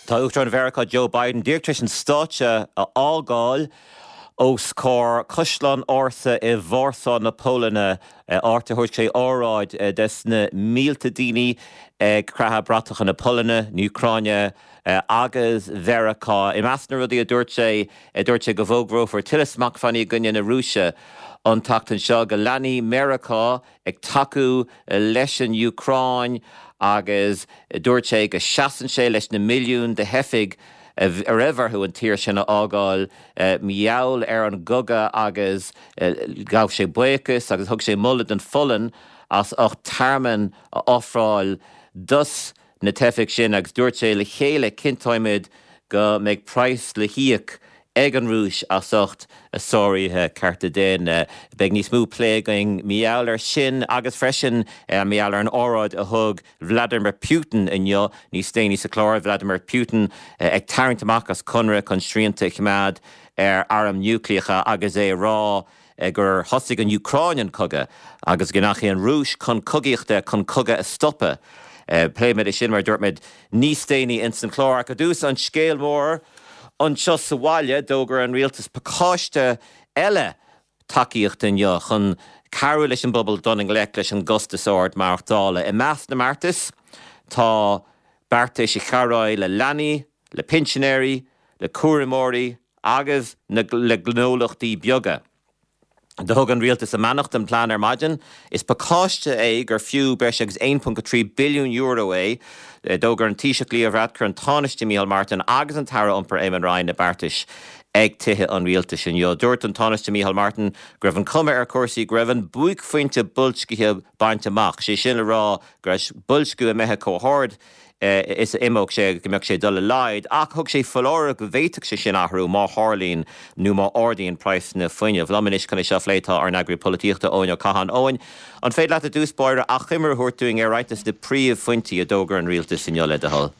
Tá Uachtarán Mheiriceá Joe Biden díreach tar éis an stáitse a fhágáil os comhair Caisleán ársa i Vársá na Polainne, áit ar thug sé óráid des na mílte daoine ag creathadh bratacha na Polainne, na Úcráine agus Mheiriceá. I measc na rudaí a dúirt sé, dúirt sé go bhfógrófar tuilleadh smachtbhannaí i gcoinne na Rúise an tseachtain seo, go leanfaidh Meiriceá ag tacú leis an Úcráin agus dúirt sé go seasann sé leis na milliúin de theifigh a raibh orthu an tír sin a fhágáil mar gheall ar an gcogadh agus ghabh sé buíochas agus thug sé moladh don Pholainn as ucht tearmann a ofráil dos na teifigh sin agus dúirt sé le chéile cinnteoimid go mbeidh praghas le híoc ag an Rúis as ucht a sáruithe cearta daonna. Beidh níos mó plé againn mar gheall air sin agus freisin mar gheall ar an óráid a thug Vladimir Putin inniu níos déanaí sa chlár, Vladimir Putin ag tarraingt amach as conradh chun srianta a choimeád ar airm núicléacha agus é ag rá gur thosaigh an Úcráin an cogadh agus go ndeachaigh an Rúis chun cogaíochta chun cogadh a stopadh. Pléifimid é sin, mar a dúirt mé, níos déanaí ins an chlár. Ach i dtús, an scéal mór anseo sa bhaile, d'fhógair an rialtas pacáiste eile tacaíochta inniu chun cabhrú leis an bpobal dul i ngleic leis an gcostas ard maireachtála. I measc na mbeartas tá beartais a chabhróidh le leanaí, le pinsinéirí, le cúramóirí agus le gnólachtaí beaga. Do thug an Rialtas a mbeannacht don phlean ar maidin. Is pacáiste é gur fiú breis agus €1.3 billiún é. D'fhógair an Taoiseach Leo Varadkar, an Tánaiste Micheál Martin agus an tAire Iompair Eamon Ryan na beartais ag Tithe an Rialtais inniu. Dúirt an Tánaiste Micheál Martin go raibh an chuma ar chúrsaí go raibh an buaicphointe boilscithe bainte amach, sé sin le rá go raibh boilsciú imithe chomh hard is a imeodh sé agus go mbeadh sé ag dul i laghad, ach thug sé foláireamh go bhféadfadh sé sin athrú má tharlaíonn nó má ardaíonn praghsanna fuinnimh. Liom anois chun é seo a phlé tá ár n-eagraí polaitíochta Eoin Ó Catháin. Eoin, an féidir leat i dtús báire achoimre a thabhairt dúinn ar roinnt de na príomhphointí a d'fhógair an rialtas inniu, le do thoil?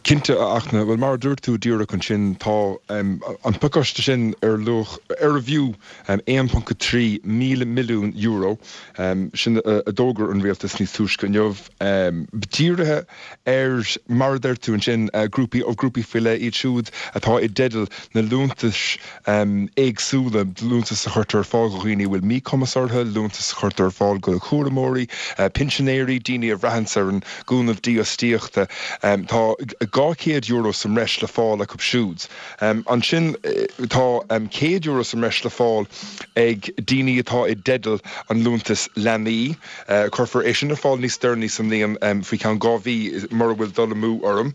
Cinnte, a Fhachtna. Bhuel, mar a dúirt tú díreach ansin, tá an pacáiste sin ar luach, arbh fhiú €1.3 míle milliún, sin a d'fhógair an rialtas níos túisce inniu. Dírithe ar, mar a deir tú ansin, grúpaí, grúpaí faoi leith, iad siúd atá i dteideal na liúntais éagsúla, liúntais a chuirtear ar fáil do dhaoine a bhfuil míchumas orthu, liúntais a chuirtear ar fáil do chúramóirí, pinsinéirí, daoine a bhraitheanns ar an gcúnamh dífhostaíochta. Tá €200 sa mbreis le fáil acu siúd. Ansin tá €100 sa mbreis le fáil ag daoine atá i dteideal an liúntais leanaí. Cuirfear é sin ar fáil níos deireanaí sa mbliain, faoi cheann 2 mhí mura bhfuil dul amú orm.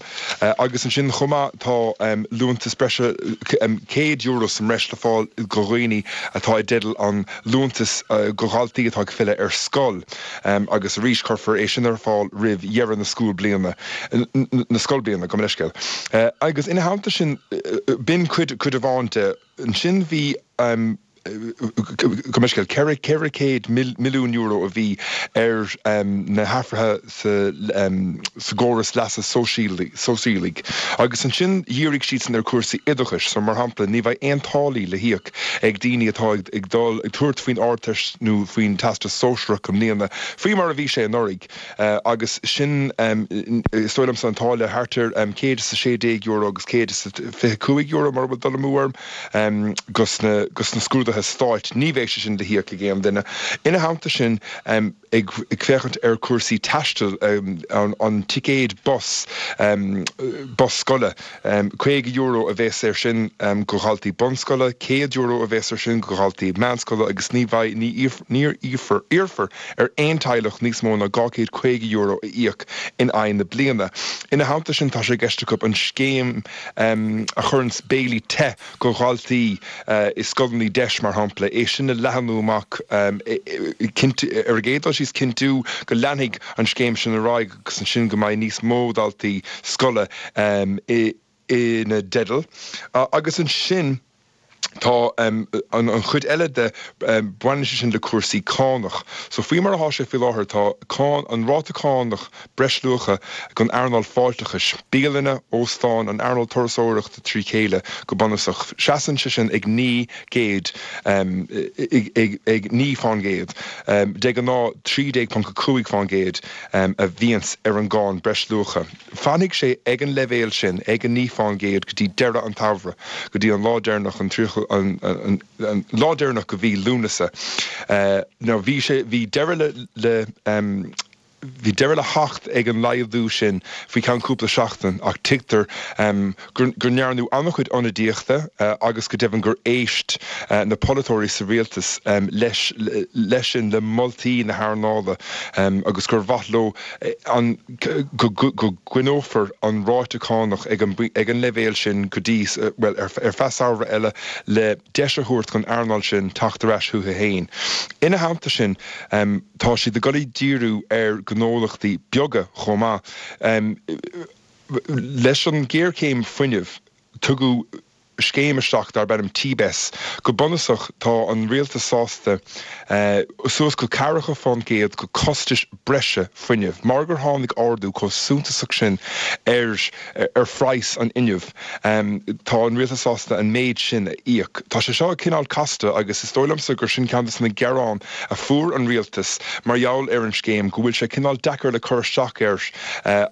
Agus ansin chomh maith tá liúntas breise €100 sa mbreis le fáil do dhaoine atá i dteideal an liúntas do dhaltaí atá ag filleadh ar scoil. Agus arís cuirfear é sin ar fáil roimh dheireadh na scoilbliana, na scoilbliana, gabh mo leithscéal. Agus ina theannta sin, b'in cuid, cuid amháin de. Ansin bhí. Gabh mo leithscéal, €400 milliún a bhí ar na hathruithe sa gcóras leasa sóisialaigh agus ansin dhírigh siadsan ar chúrsaí oideachais. So, mar shampla, ní bheidh aon táillí le híoc ag daoine atá ag dul, ag tabhairt faoin Ardteist nó faoin Teastas Sóisearach i mbliana, faoi mar a bhí sé anuraidh. Agus sin, is dóigh liomsa, an táille thart ar €116 agus €125, mura bhfuil dul amú orm. Dos na scrúduithe stáit, ní bheidh sé sin le híoc ag aon duine. Ina theannta sin, ag féachaint ar chúrsaí taistil, an ticéad bus, bus scoile, €50 a bheas air sin do dhaltaí bunscoile, €100 a bheas air sin do dhaltaí meánscoile agus ní bheidh, ní iarrfar ar aon teaghlach níos mó ná €250 a íoc in aghaidh na bliana. Ina theannta sin, tá sé i gceist acu an scéim a chuireanns béilí te go dhaltaí i scoileanna deis, mar shampla, é sin a leathnú amach, ar an gcéad dul síos, cinntiú go leanfaidh an scéim sin ar aghaidh agus ansin go mbeidh níos mó daltaí scoile ina dteideal. Agus ansin. Tá an chuid eile de, baineann sé sin le cúrsaí cánach. So faoi mar atá sé faoi láthair, tá cáin, an ráta cánach breisluacha don earnáil fáilteachais, bialanna, óstáin, an earnáil turasóireachta trí chéile go bunúsach, seasann sé sin ag 900, ag 9 fán gcéad. De ghnáth 13.5 fán gcéad a bhíonns ar an gcáin breisluacha. Fanfaidh sé ag an leibhéal sin, ag an 9 fán gcéad, go dtí deireadh an tsamhraidh, go dtí an lá deireanach, an 30, an lá deireanach de mhí Lúnasa. Now bhí sé, bhí deireadh le, le, bhí deireadh le theacht ag an laghdú sin faoi cheann cúpla seachtain ach tuigtear go, go ndearnadh an-chuid ionadaíochta agus go deimhin gur éist na polaiteoirí sa rialtas leis, leis sin, le moltaí na hearnála agus gur mhaith leo an. go gcoinneofar an ráta cánach ag an leibhéal sin go dtí, bhuel, ar feadh samhradh eile le deis a thabhairt don earnáil sin teacht ar ais chuici féin. Ina theannta sin, tá siad ag dul ag díriú ar ghnólachtaí beaga chomh maith. Leis an ghéarchéim fuinnimh, tugadh scéim isteach darb ainm TBES. Go bunúsach, tá an rialtas sásta suas go ceathracha fán gcéad de chostais breise fuinnimh, mar gur tháinig ardú chomh suntasach sin ar ar phraghas an fhuinnimh, tá an rialtas sásta an méid sin a íoc. Tá sé seo cineál casta agus is dóigh liomsa gur sin ceann de na gearáin a fuair an rialtas mar gheall ar an scéim, go bhfuil sé cineál deacair le cur isteach air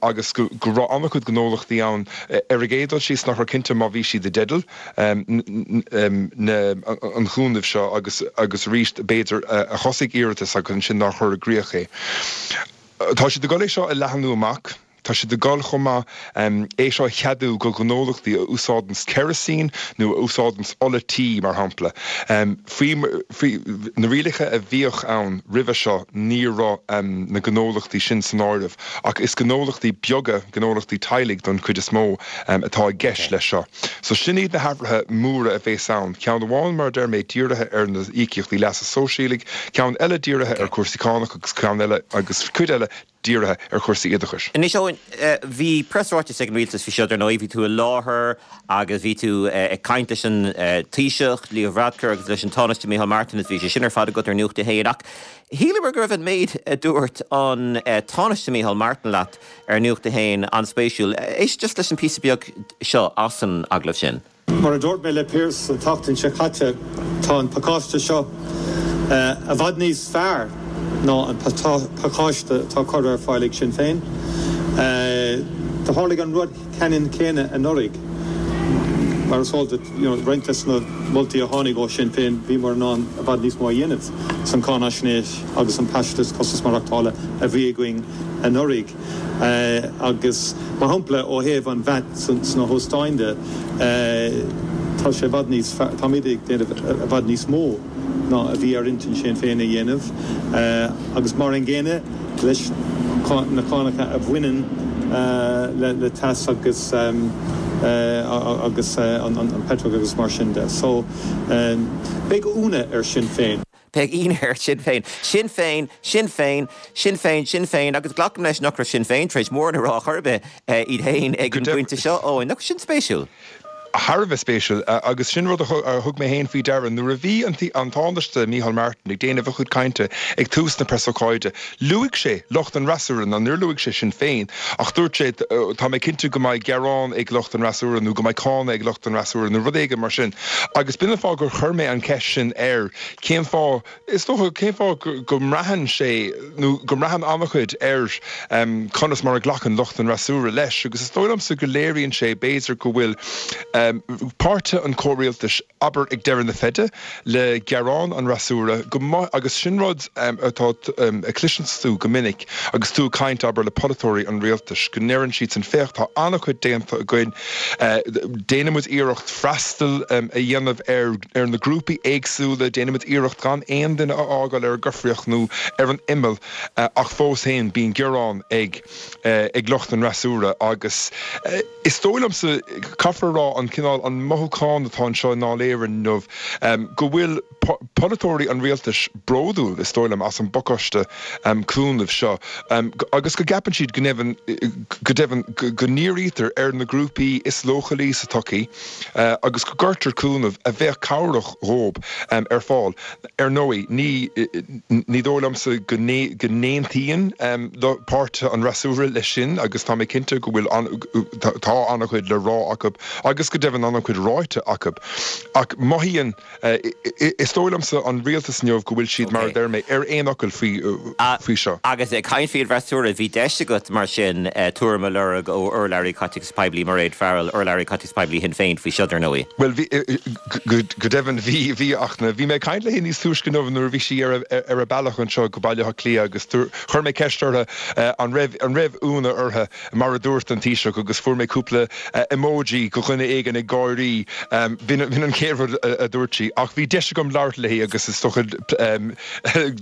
agus go raibh an-chuid gnólachtaí ann Ar an gcéad dul síos, nach raibh cinnte má bhí siad i dteideal an chúnaimh seo agus agus arís b'fhéidir a thosaigh iarratas agus ansin nár chuir i gcrích é. Tá siad ag dul é seo a leathnú amach. Tá siad ag dul chomh maith é seo a cheadú do ghnólachtaí a úsáideanns kerosene nó a úsáideanns ola tí, mar shampla. Faoi na rialacha a bhíodh ann roimhe seo ní raibh na gnólachtaí sin san áireamh. Ach is gnólachtaí beaga, gnólachtaí teaghlaigh don chuid is mó, atá i gceist leis seo. So sin iad na hathruithe móra a bhéas ann. Ceann amháin, mar a deir mé, dírithe ar na íocaíochtaí leasa sóisialaigh, ceann eile dírithe ar chúrsaí cánach agus ceann eile, agus cuid eile dírithe ar chúrsaí oideachais. Anois Eoin, bhí preasráiteas ag an rialtas faoi seo dar ndóigh, bhí tú i láthair agus bhí tú ag caint leis an Taoiseach, Leo Varadkar agus leis an Tánaiste Micheál Martin agus bhí sé sin ar fad agat ar Nuacht a hAon ach Shíleamar go raibh an méid a dúirt an Tánaiste Micheál Martin leat ar Nuacht a hAon an-spéisiúil. Éist just leis an píosa beag seo as an agallamh sin. Mar a dúirt mé le Pearse an tseachtain seo caite, tá an pacáiste seo i bhfad níos fearr ná an pacáiste atá curtha ar fáil ag Sinn Féin. Do tharlaigh an rud ceannann céanna anuraidh. Mar is eol duit, roinnt des na moltaí a tháinig ó Shinn Féin, bhíomar in ann i bhfad níos mó a dhéanamh san cáinaisnéis agus an paiste costas maireachtála a bhí againn anuraidh. Agus, mar shampla, ó thaobh an VAT sna hóstáin de, tá sé i bhfad níos fearr, táimid ag déanamh i bhfad níos mó ná a bhí ar intinn Shinn Féin a dhéanamh. Agus mar an gcéanna leis na cánacha a bhaineann le teas agus agus an petrol agus mar sin de. So, beidh ionadh ar Sinn Féin. Beidh ionadh ar Sinn Féin. Sinn Féin, Sinn Féin, Sinn Féin, Sinn Féin agus glacaim leis nach raibh Sinn Féin tar éis mórán a rá chor ar bith iad féin ag an bpointe seo. Ó, nach sin spéisiúil? Thar a bheith spéisiúil, agus sin rud a thug mé féin faoi deara nuair a bhí an Tánaiste Micheál Martin ag déanamh a chuid cainte ag tús na preasócáide. Luaigh sé lucht an fhreasúra, ná níor luaigh sé Sinn Féin, ach dúirt sé, tá mé cinnte go mbeidh gearán ag lucht an fhreasúra nó go mbeidh cáineadh ag lucht an fhreasúra nó rud éigin mar sin. Agus b'in an fáth gur chuir mé an cheist sin air, cén fáth, Is dócha, cén fáth go mbraitheann sé, nó go mbraitheann an-chuid ar conas mar a ghlacann lucht an fhreasúra leis, agus is dóigh liomsa go léiríonn sé, b'fhéidir, go bhfuil páirtithe an chomhrialtais, abair, ag deireadh na feide le gearán an fhreasúra, go mba, agus sin rud atá, a chloiseanns tú go minic agus tú ag caint, abair, le polaiteoirí an rialtais, go ndeireann siadsan, féach, tá an-chuid déanta againn, déanann muid iarracht freastal a dhéanamh ar. ar na grúpaí éagsúla, déanaimid iarracht gan aon duine a fhágáil ar an gcoimhthíoch nó ar an imeall ach fós féin bíonn gearán ag ag lucht an fhreasúra agus is dóigh liomsa, caithfear a rá, an. cineál, an mothúchán atá anseo i nDáil Éireann inniu, go bhfuil polaiteoirí an rialtais bródúil, is dóigh liom, as an bpacáiste cúnaimh seo agus go gceapann siad go ndeimhin, go deimhin, go ndírítear ar na grúpaí is leochailí sa tsochaí agus go gcuirtear cúnamh a bheadh cabhrach dhóibh ar fáil. Ar ndóigh, ní ní dóigh liomsa go n-aontaíonn páirtithe an fhreasúra leis sin agus tá mé cinnte go bhfuil tá an-chuid le rá acu agus go deimhin an-chuid ráite acu. Ach mothaíonn, is dóigh liomsa, an rialtas inniu go bhfuil siad, mar a deir mé, ar aon fhocal faoi seo. Agus ag caint faoin bhfreasúra, bhí deis agat mar sin tuairim a lorg ó urlabhraí Caiteachais Poiblí Mairéad Farrell, urlabhraí Caiteachais Poiblí Shinn Féin faoi seo, dar ndóigh. Bhuel, bhí, go deimhin, bhí, bhí, ach bhí mé ag caint léi níos túisce inniu nuair a bhí sí ar a bealach anseo go Baile Átha Cliath agus chuir mé ceist uirthi an raibh, an raibh ionadh uirthi mar a dúirt an Taoiseach agus fuair mé cúpla emoji de dhuine éigin ag gáirí, b'in an chéad rud a dúirt sí. Ach bhí deis agam labhairt léi agus is dócha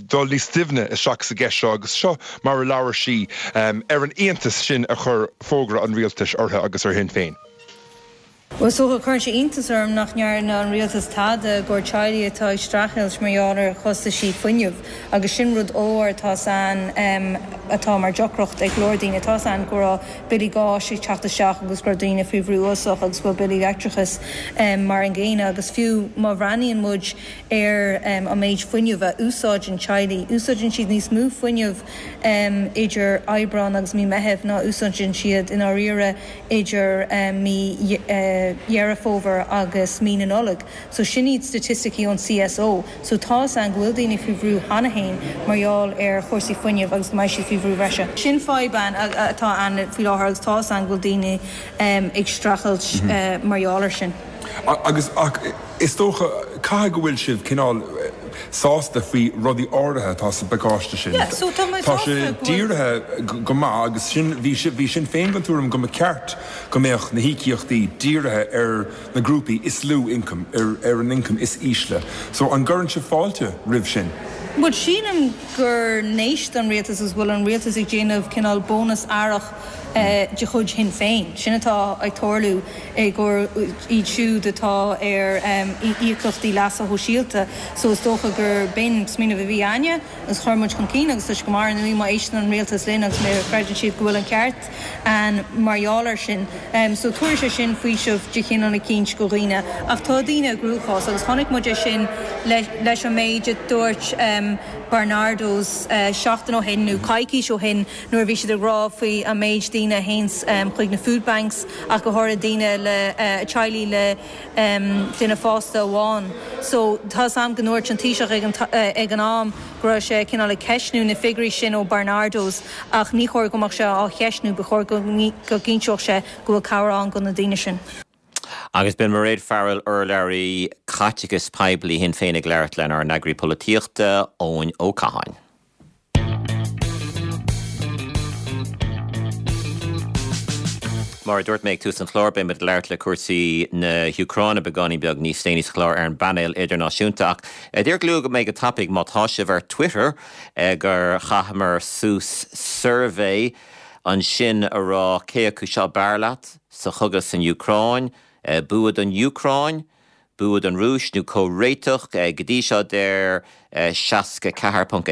dul níos doimhne isteach sa gceist seo agus seo mar a labhair sí ar an iontas sin a chuir fógra an rialtais uirthi agus ar Shinn Féin. Bhuel, is dócha, cuireann sé iontas orm nach ndearna an rialtas tada i gcomhair teaghlaigh atá ag streachailt mar gheall ar chostaisí fuinnimh agus sin rud ollmhór atá ann atá mar deacracht ag go leor daoine. Tá ann go raibh billí gáis ag teacht isteach agus go raibh daoine faoi bhrú uafásach agus go bhfuil billí leictreachais mar an gcéanna agus fiú má bhreathnaíonn muid ar an méid fuinnimh a úsáideann teaghlaigh, úsáideann siad níos mó fuinnimh idir Aibreán agus mí Meithimh ná úsáideann siad i ndáiríre idir mí Dheireadh Fómhair agus mí na Nollag. So sin iad staitisticí ón CSO. So tá's a'inn go bhfuil daoine faoi bhrú cheana féin mar gheall ar chúrsaí fuinnimh agus go mbeidh siad faoi bhrú bhreise. Sin fadhb atá ann faoi láthair agus tá's a'inn go bhfuil daoine ag streachailt mar gheall ar sin. Agus, ach is dócha, caithfidh go bhfuil sibh cineál sásta faoi rudaí áirithe atá sa bpacáiste sin. Yeah, so tá mé Tá sásta sé go bhfuil. dírithe go maith agus sin, bhí, bhí Sinn Féin den tuairim go mba ceart go mbeadh na híocaíochtaí dírithe ar na grúpaí is lú ioncaim, ar, ar an ioncam is ísle. So an gcuireann sibh fáilte roimh sin? Bhuel, sílim gur n-éist an rialtas agus go bhfuil an rialtas ag déanamh cineál bónas earrach de chuid Shinn Féin. Sin atá ag tarlú i gcomhair iad siúd atá ar íocaíochtaí leasa shóisialta. So is dócha gur b'in smaoineamh a bhí a'inne agus chuir muid chun cinn agus tá sé go maith ar ndóigh má éisteann an rialtas linn agus má chreideann siad go bhfuil an ceart a'inn mar gheall air sin. So tabharfaidh sé sin faoiseamh de chineál eicínt go dhaoine. Ach tá daoine i gcruachás agus chonaic muid é sin leis an méid a dúirt Barnardo's seachtain ó shin nó coicís ó shin nuair a bhí siad ag rá faoi an méid daoine a théanns chuig na food banks ach go háirithe daoine le teaghlaigh le duine fásta amháin. So tá's a'm go ndúirt an Taoiseach ag an ag an am go raibh sé cineál ag ceistniú na figiúirí sin ó Barnardo's ach ní chóir go mbeadh sé á cheistniú, ba chóir go go gcinnteodh sé go bhfuil cabhair ann go na daoine sin. Agus b'in Mairéad Farrell, urlabhraí caiteachais poiblí Shinn Féin ag labhairt lenár n-eagraí polaitíochta, Eoin Ó Catháin. Mar a dúirt mé ag tús an chláir, beidh muid ag labhairt le cúrsaí na hÚcráine beagáinín beag níos déanaí sa chlár ar an bpainéal idirnáisiúnta. Ach díreach luafaidh mé go tapaidh, má tá sibh ar Twitter, gur chaitheamar suas suirbhé ansin a rá cé acu seo b'fhearr leat sa chogadh san Úcráin, bua don Úcráin, Bua don Rúis nó comhréiteach? Go dtí seo deir 64.1%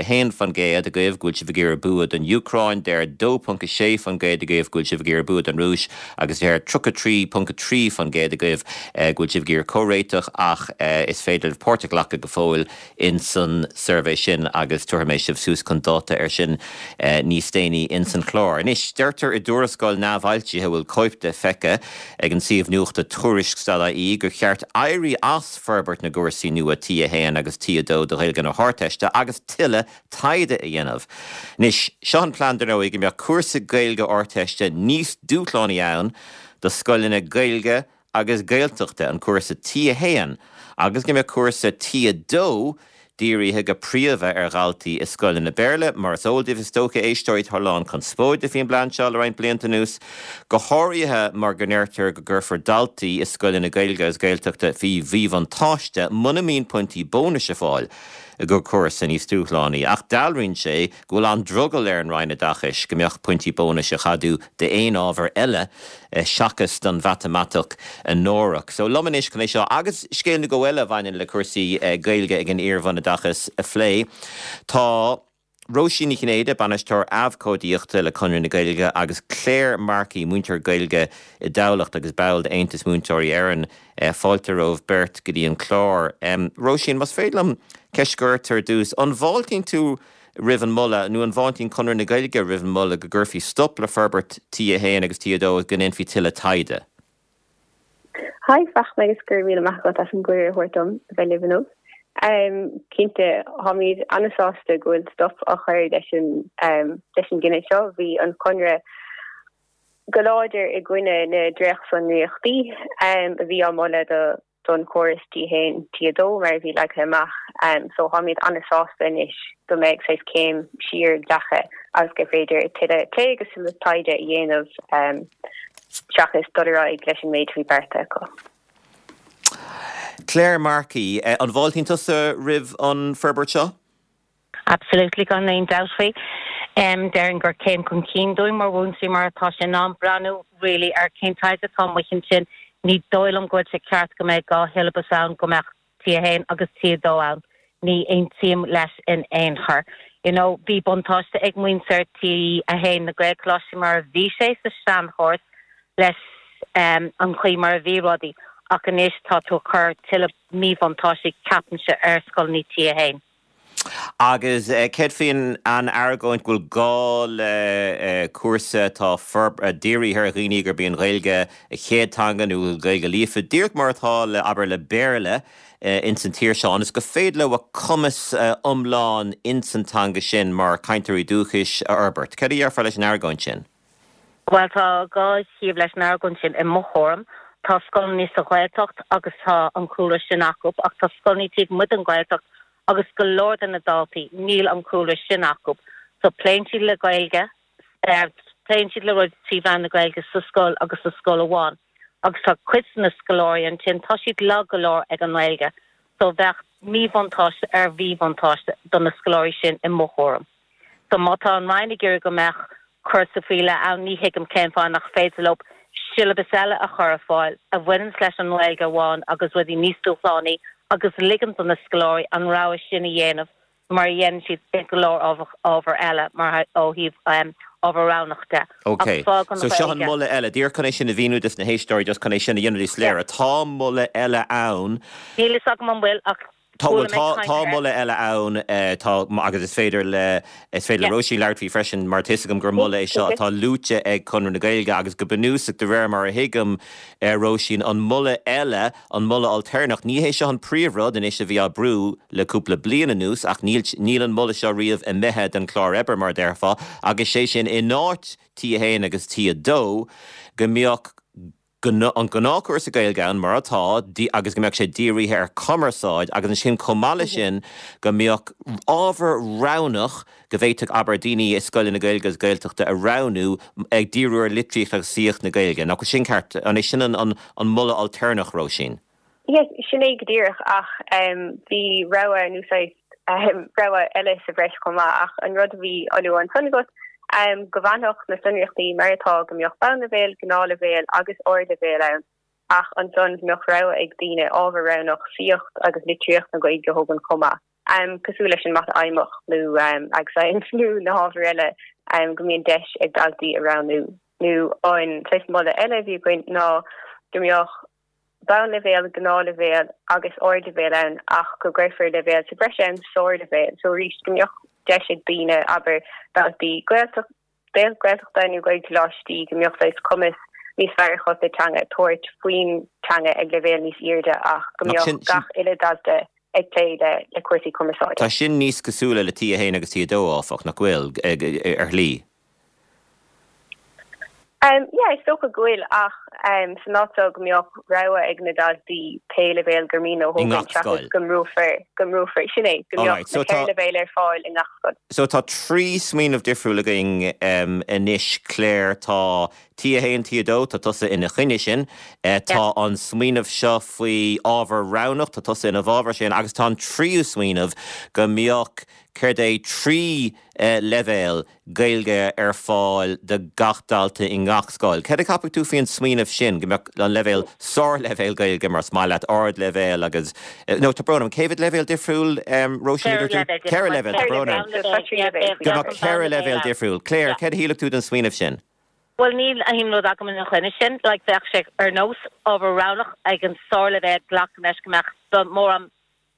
agaibh go bhfuil sibh ag iarraidh bua don Úcráin, deir 2.6% agaibh go bhfuil sibh ag iarraidh bua don Rúis agus deir 33.3% agaibh go bhfuil sibh ag iarraidh comhréiteach ach is féidir libh páirt a ghlacadh go fóill ins an suirbhé sin agus tabharfaidh mé sibh suas chun dáta air sin níos déanaí ins an chlár. Anois, deirtear i dtuarascáil neamhfhoilsithe a bhfuil cóip de feicthe ag an suíomh nuachta Tuairisc.ie gur cheart éirí as forbairt na gcúrsaí nua T1 agus T2 do Ghaeilge na hArdteiste agus tuilleadh taighde a dhéanamh. Anois, seo an plean dar ndóigh go mbeadh cúrsa Gaeilge Ardteiste níos dúshlánaí ann do scoileanna Gaeilge agus Gaeltachta, an cúrsa T1, agus go mbeadh cúrsa T2 dírithe go príomha ar dhaltaí i scoileanna Béarla. Mar is eol daoibh is dócha, a éisteoirí, tá a lán conspóide faoin bplean seo le roinnt blianta anuas, go háirithe mar go ndeirtear go gcuirfear daltaí i scoileanna Gaeilge agus Gaeltachta faoi mhíbhuntáiste muna mbíonn pointí bónais ar fáil. gur cúrsa níos dúshlánaí. Ach dealraíonn sé go bhfuil an-drogall ar an Roinn Oideachais go mbeadh pointí bónais á gceadú d'aon ábhar eile seachas don mhatamaitic anuraidh. So liom anois chun é seo agus scéal nó dhó eile a bhaineann le cúrsaí Gaeilge ag an iar-bhunoideachas a phlé, tá Róisín Ní Chinnéide, Bainisteoir Abhcóideachta le Conradh na Gaeilge agus Claire Markey, múinteoir Gaeilge i dTamhlacht agus ball d'Aontas Múinteoirí Éireann. Fáilte romhaibh beirt go dtí an clár. Róisín, más féidir liom ceist a chur ort ar dtús, an bhfáiltíonn tú roimh an moladh, nó an bhfáiltíonn Conradh na Gaeilge roimh an moladh go gcuirfí stop le forbairt T1 agus T2 agus go ndéanfaí tuilleadh taighde? Hi Fachtna agus go raibh míle maith agat as an gcuireadh a thabhairt dom a bheith libh inniu. Cinnte, táimid an-sásta go bhfuil stop á chur leis an leis an gcinneadh seo. Bhí an Conradh go láidir i gcoinne na dréachtsonraíochtaí a bhí á moladh do don chóras T1, T2 mar a bhí leagtha amach. So táimid an-sásta anois go mbeidh saghas céim siar glactha agus gur féidir tuilleadh plé agus tuilleadh taighde a dhéanamh seachas dul ar aghaidh leis an méid a bhí beartaithe acu. Claire Markey, an bhfáiltíonn tusa roimh an forbairt seo? Absolutely, gan aon dabht faoi. Déarfainn gur céim chun cinn dúinn mar mhúinteoirí mar tá sé in am breathnú really ar cén taighde atá amuigh ansin. Ní dóigh liom go bhfuil sé ceart go mbeidh 2 shiollabas ann, go mbeadh T1 agus T2 ann. Ní aontaím leis in aon chor. You know, bhí buntáiste ag muintir T1 na Gaelcholáistí mar a bhí sé sa seanchóras leis an chaoi mar a bhí rudaí ach anois tá tú ag cur tuilleadh míbhuntáistí ceapaimse ar scoileanna T1. Agus céard faoin an argóint go bhfuil gá le cúrsa atá dírithe ar dhaoine gurb í an Ghaeilge a chéad teanga nó Gaeilge líofa, díreach mar atá le, abair, le Béarla ins an tír seo, ionas gur féidir leo a cumas iomlán ins an teanga sin mar chainteoirí dúchais a fhorbairt. Céard a dhéarfá leis an argóint sin? Bhuel, tá 2 thaobh leis an argóint sin i mo thuairim. Tá scoileanna sa Ghaeltacht agus tá an cúlra sin acu, ach tá scoileanna taobh amuigh den Ghaeltacht agus go leor de na daltaí, níl an cúlra sin acu. So pléann siad le Gaeilge, pléann siad le rudaí trí mheán na Gaeilge sa scoil agus sa scoil amháin. Agus tá cuid de na scoláirí ansin, tá siad lag go leor ag an nGaeilge. So bheadh míbhuntáiste ar mhíbhuntáiste do na scoláirí sin i mo thuairim. So má tá an Roinn ag iarraidh go mbeadh cúrsa faoi leith ann, ní thuigim cén fáth nach féidir leo siollabas eile a chur ar fáil a bhaineanns leis an nGaeilge amháin agus rudaí níos dúshlánaí agus ligean do na scoláirí an rogha sin a dhéanamh mar a dhéanann siad i go leor ábhar eile mar ó thaobh ábhar roghnach de. Ok, so seo an moladh eile. Díreach chun é sin a mhíniú dos na héisteoirí, just chun é sin a dhéanamh níos soiléire. Tá moladh eile ann. Níl fhios agam an bhfuil ach Tá, bhuel, tá, tá moladh eile ann, tá, agus is féidir le, is féidir le Róisín labhairt faoi freisin, mar tá 'fhios agam gur moladh é seo atá luaite ag Conradh na Gaeilge agus go bunúsach, de réir mar a thuigim, Róisín, an moladh eile, an moladh ailtéarnach, ní hé seo an príomhrud anois a bhí á brú le cúpla bliain anuas ach níl, níl an moladh seo riamh imithe den chlár oibre, mar a déarfá, agus sé sin in áit T1 agus T2 go mbeadh an gnáthchúrsa Gaeilge ann, mar atá, agus go mbeadh sé dírithe ar chumarsáid agus ansin chomh maith leis sin go mbeadh ábhar roghnach go bhféadfadh, abair, daoine i scoileanna Gaeilge agus Gaeltachta a roghnú ag díriú ar litríocht agus saíocht na Gaeilge. Nach bhfuil sin ceart? An é sin an moladh ailtéarnach, Róisín? Yes, sin é go díreach ach bhí rogha nó saghas rogha eile sa bhreis chomh maith ach an rud a bhí á lua ansan agat, go bhfanfadh na sonraíochtaí mar atá, go mbeadh bonnleibhéal, gnáthleibhéal agus ardleibhéal ann ach ansan go mbeadh rogha ag daoine ábhar roghnach saíocht agus litríocht na Gaeilge a thógaint chomh maith, cosúil leis an Mata Fheidhmeach nó Ag Science nó na hábhair eile go mbíonn deis ag daltaí a roghnú. Nó an saghas moladh eile a bhí againn ná go mbeadh bonnleibhéal, gnáthleibhéal agus ardleibhéal ann ach go gcuirfear leibhéal sa bhreis ann, sárleibhéal. So arís, go mbeadh deis ag daoine, abair, daltaí Gaeltachta nó Gaelcholáistí, go mbeadh saghas cumas níos fearr acu sa teanga, tabhairt faoin teanga ag leibhéal níos airde ach go mbeadh gach uile dalta ag plé le cúrsaí cumarsáide. Tá sin níos cosúla le T1 agus T2, áfach, nach bhfuil, ar shlí? Yeah, is dócha go bhfuil, ach san áit seo go mbeadh rogha ag na daltaí pé leibhéal gur mian leo a thógaint seachas go mbrúfar, go mbrúfar, sin é, go mbeadh na ceithre leibhéal ar fáil i ngach scoil. So tá 3 smaoineamh difriúil againn anois, Claire, tá. T1, T2, tá tusa ina choinne sin. Tá an smaoineamh seo faoi ábhar roghnach, tá tusa ina bhfabhar sin agus tá an tríú smaoineamh go mbeadh, céard é, 3 leibhéal Gaeilge ar fáil do gach dalta i ngach scoil. Céard a cheapfadh tú faoin smaoineamh sin, go mbeadh an leibhéal, sárleibhéal Gaeilge mar is maith leat, ardleibhéal agus, nó tá brón orm, cé mhéad leibhéal difriúil, Róisín, a dúirt tú? Ceithre leibhéal, tá brón orm. Go mbeadh 4 leibhéal difriúil. Claire, céard a shílfeadh tú den smaoineamh sin? Bhuel, níl aon rud agam ina choinne sin. Like, bheadh sé ar nós ábhar roghnach ag an sárleibhéal, glacaim leis go mbeadh mórán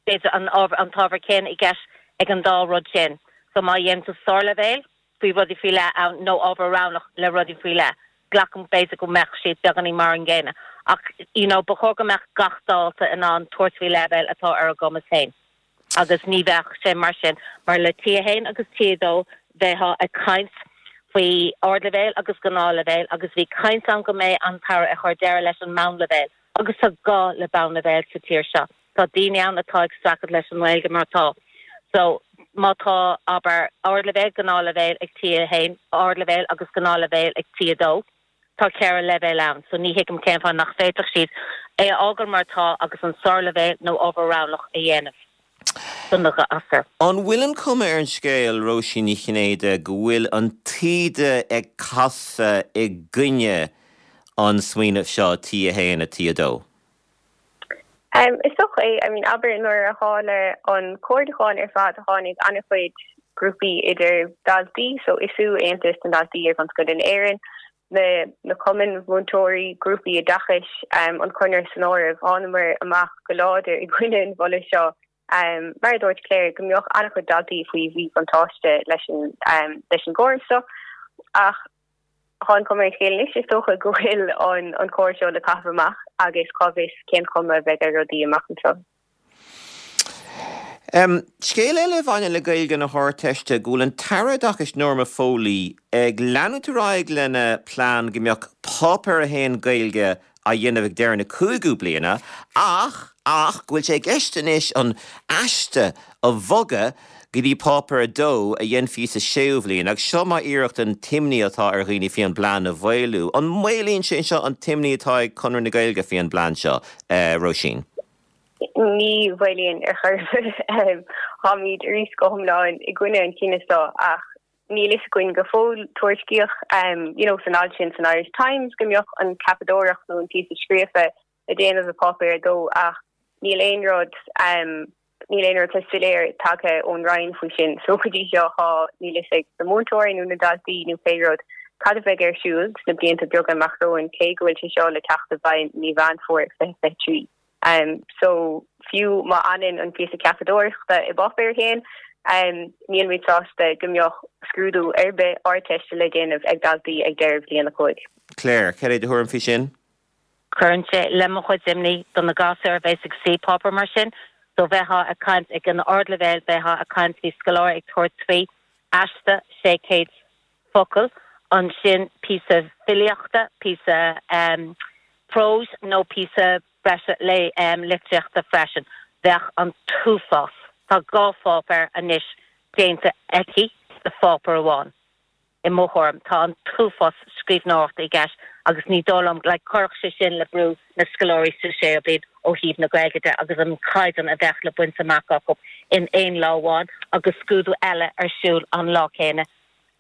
b'fhéidir an ábhar, an t-ábhar céanna i gceist ag an dá rud sin. So má dhéanann tú sárleibhéal faoi rudaí faoi leith ann nó ábhar roghnach le rudaí faoi leith, glacaim b'fhéidir go mbeadh siad beagáinín mar an gcéanna. Ach you know ba chóir go mbeadh gach dalta in ann tabhairt faoi leibhéal atá ar a gcumas féin. Agus ní bheadh sé mar sin mar le T1 agus T2 bheifeá ag caint faoi ardleibhéal agus gnáthleibhéal agus bhí caint ann go mbeidh an tAire ag cur deireadh leis an meánleibhéal agus tá gá le meánleibhéal sa tír seo. Tá daoine ann atá ag streachailt leis an nGaeilge mar atá. So, má tá, abair, ardleibhéal, gnáthleibhéal ag T1, ardleibhéal agus gnáthleibhéal ag T2, tá 4 leibhéal ann. So, ní thuigim cén fáth nach bhféadfadh siad é a fhágáil mar atá agus an sárleibhéal nó ábhar roghnach a dhéanamh do na gasúir. An bhfuil an chuma ar an scéal, Róisín Ní Chinnéide, go bhfuil an taoide ag casadh i gcoinne an smaoineamh seo, T1 a T2? Is dócha é. I mean, abair nuair a tharla an comhairliúchán ar fad tháinig an-chuid grúpaí idir daltaí, so ISU, Aontas na nDaltaí Iar-bhunscoile in Éirinn, na na cumainn mhúinteoirí, grúpaí oideachais, an Conradh san áireamh, thánamar amach go láidir i gcoinne an mholadh seo. Mar a dúirt Claire, go mbeadh an-chuid daltaí faoi mhíbhuntáiste leis an leis an gcóras seo ach Tá an chuma ar an scéal anois, is dócha, go bhfuil an córas seo le caitheamh amach agus cá bhfios cén chuma a bheidh ar rudaí amach anseo. Scéal eile a bhaineann le Gaeilge na hArdteiste, go bhfuil an tAire Oideachais Norma Foley ag leanúint ar aghaidh lena plean go mbeadh Páipéar 1 Gaeilge á dhéanamh ag deireadh na cúigiú bliana ach ach go bhfuil sé i gceist anois an aiste a bhogadh go dtí Páipéar 2 a dhéanfaí sa séú bhliain agus seo mar iarracht an t-imní atá ar dhaoine faoi an bplean a mhaolú. An maolaíonn sé seo an t-imní atá ag Conradh na Gaeilge faoi an bplean seo, Róisín? Ní mhaolaíonn ar chor ar bith. Táimid arís go hiomlán i gcoinne an chinnidh seo ach Níl fhios againn go fóill. Tuairiscíodh you know san alt sin san Irish Times go mbeadh an ceapadóireacht nó an píosa scríofa le déanamh i Páipéar 2 ach níl aon rud níl aon rud soiléir tagtha ón Roinn faoi sin. So go dtí seo tá níl fhios ag na múinteoirí nó na daltaí nó pé rud cad a bheidh ar siúl sna blianta beaga amach romhainn cé go bhfuil sé seo le teacht i bhfeidhm mí Mheán Fómhair 2023. So, fiú má fhanann an píosa ceapadóireachta i bPáipéar 1, nílimid sásta go mbeadh scrúdú ar bith Ardteiste le déanamh ag daltaí ag deireadh bhliain 5. Claire, céard é do thuairim faoi sin? Cuireann sé le mo chuid imní do na gasúir a bheas ag suí páipéar mar sin. So bheifeá ag caint ag an ardleibhéal, bheifeá ag caint faoi scoláire ag tabhairt faoi aiste 600 focal, ansin píosa filíochta, píosa próis nó píosa breise litríochta freisin. Bheadh an t-uafás. Tá dhá pháipéar anois déanta aici de pháipéar amháin. I mo thuairim, tá an t-uafás scríbhneoireachta i gceist agus ní dóigh liom, like, chuirfeadh sé sin le brú na scoláirí sa séú bliain ó thaobh na Gaeilge de agus an caighdeán a bheadh le baint amach acu in aon lá amháin agus scrúdú eile ar siúl an lá céanna.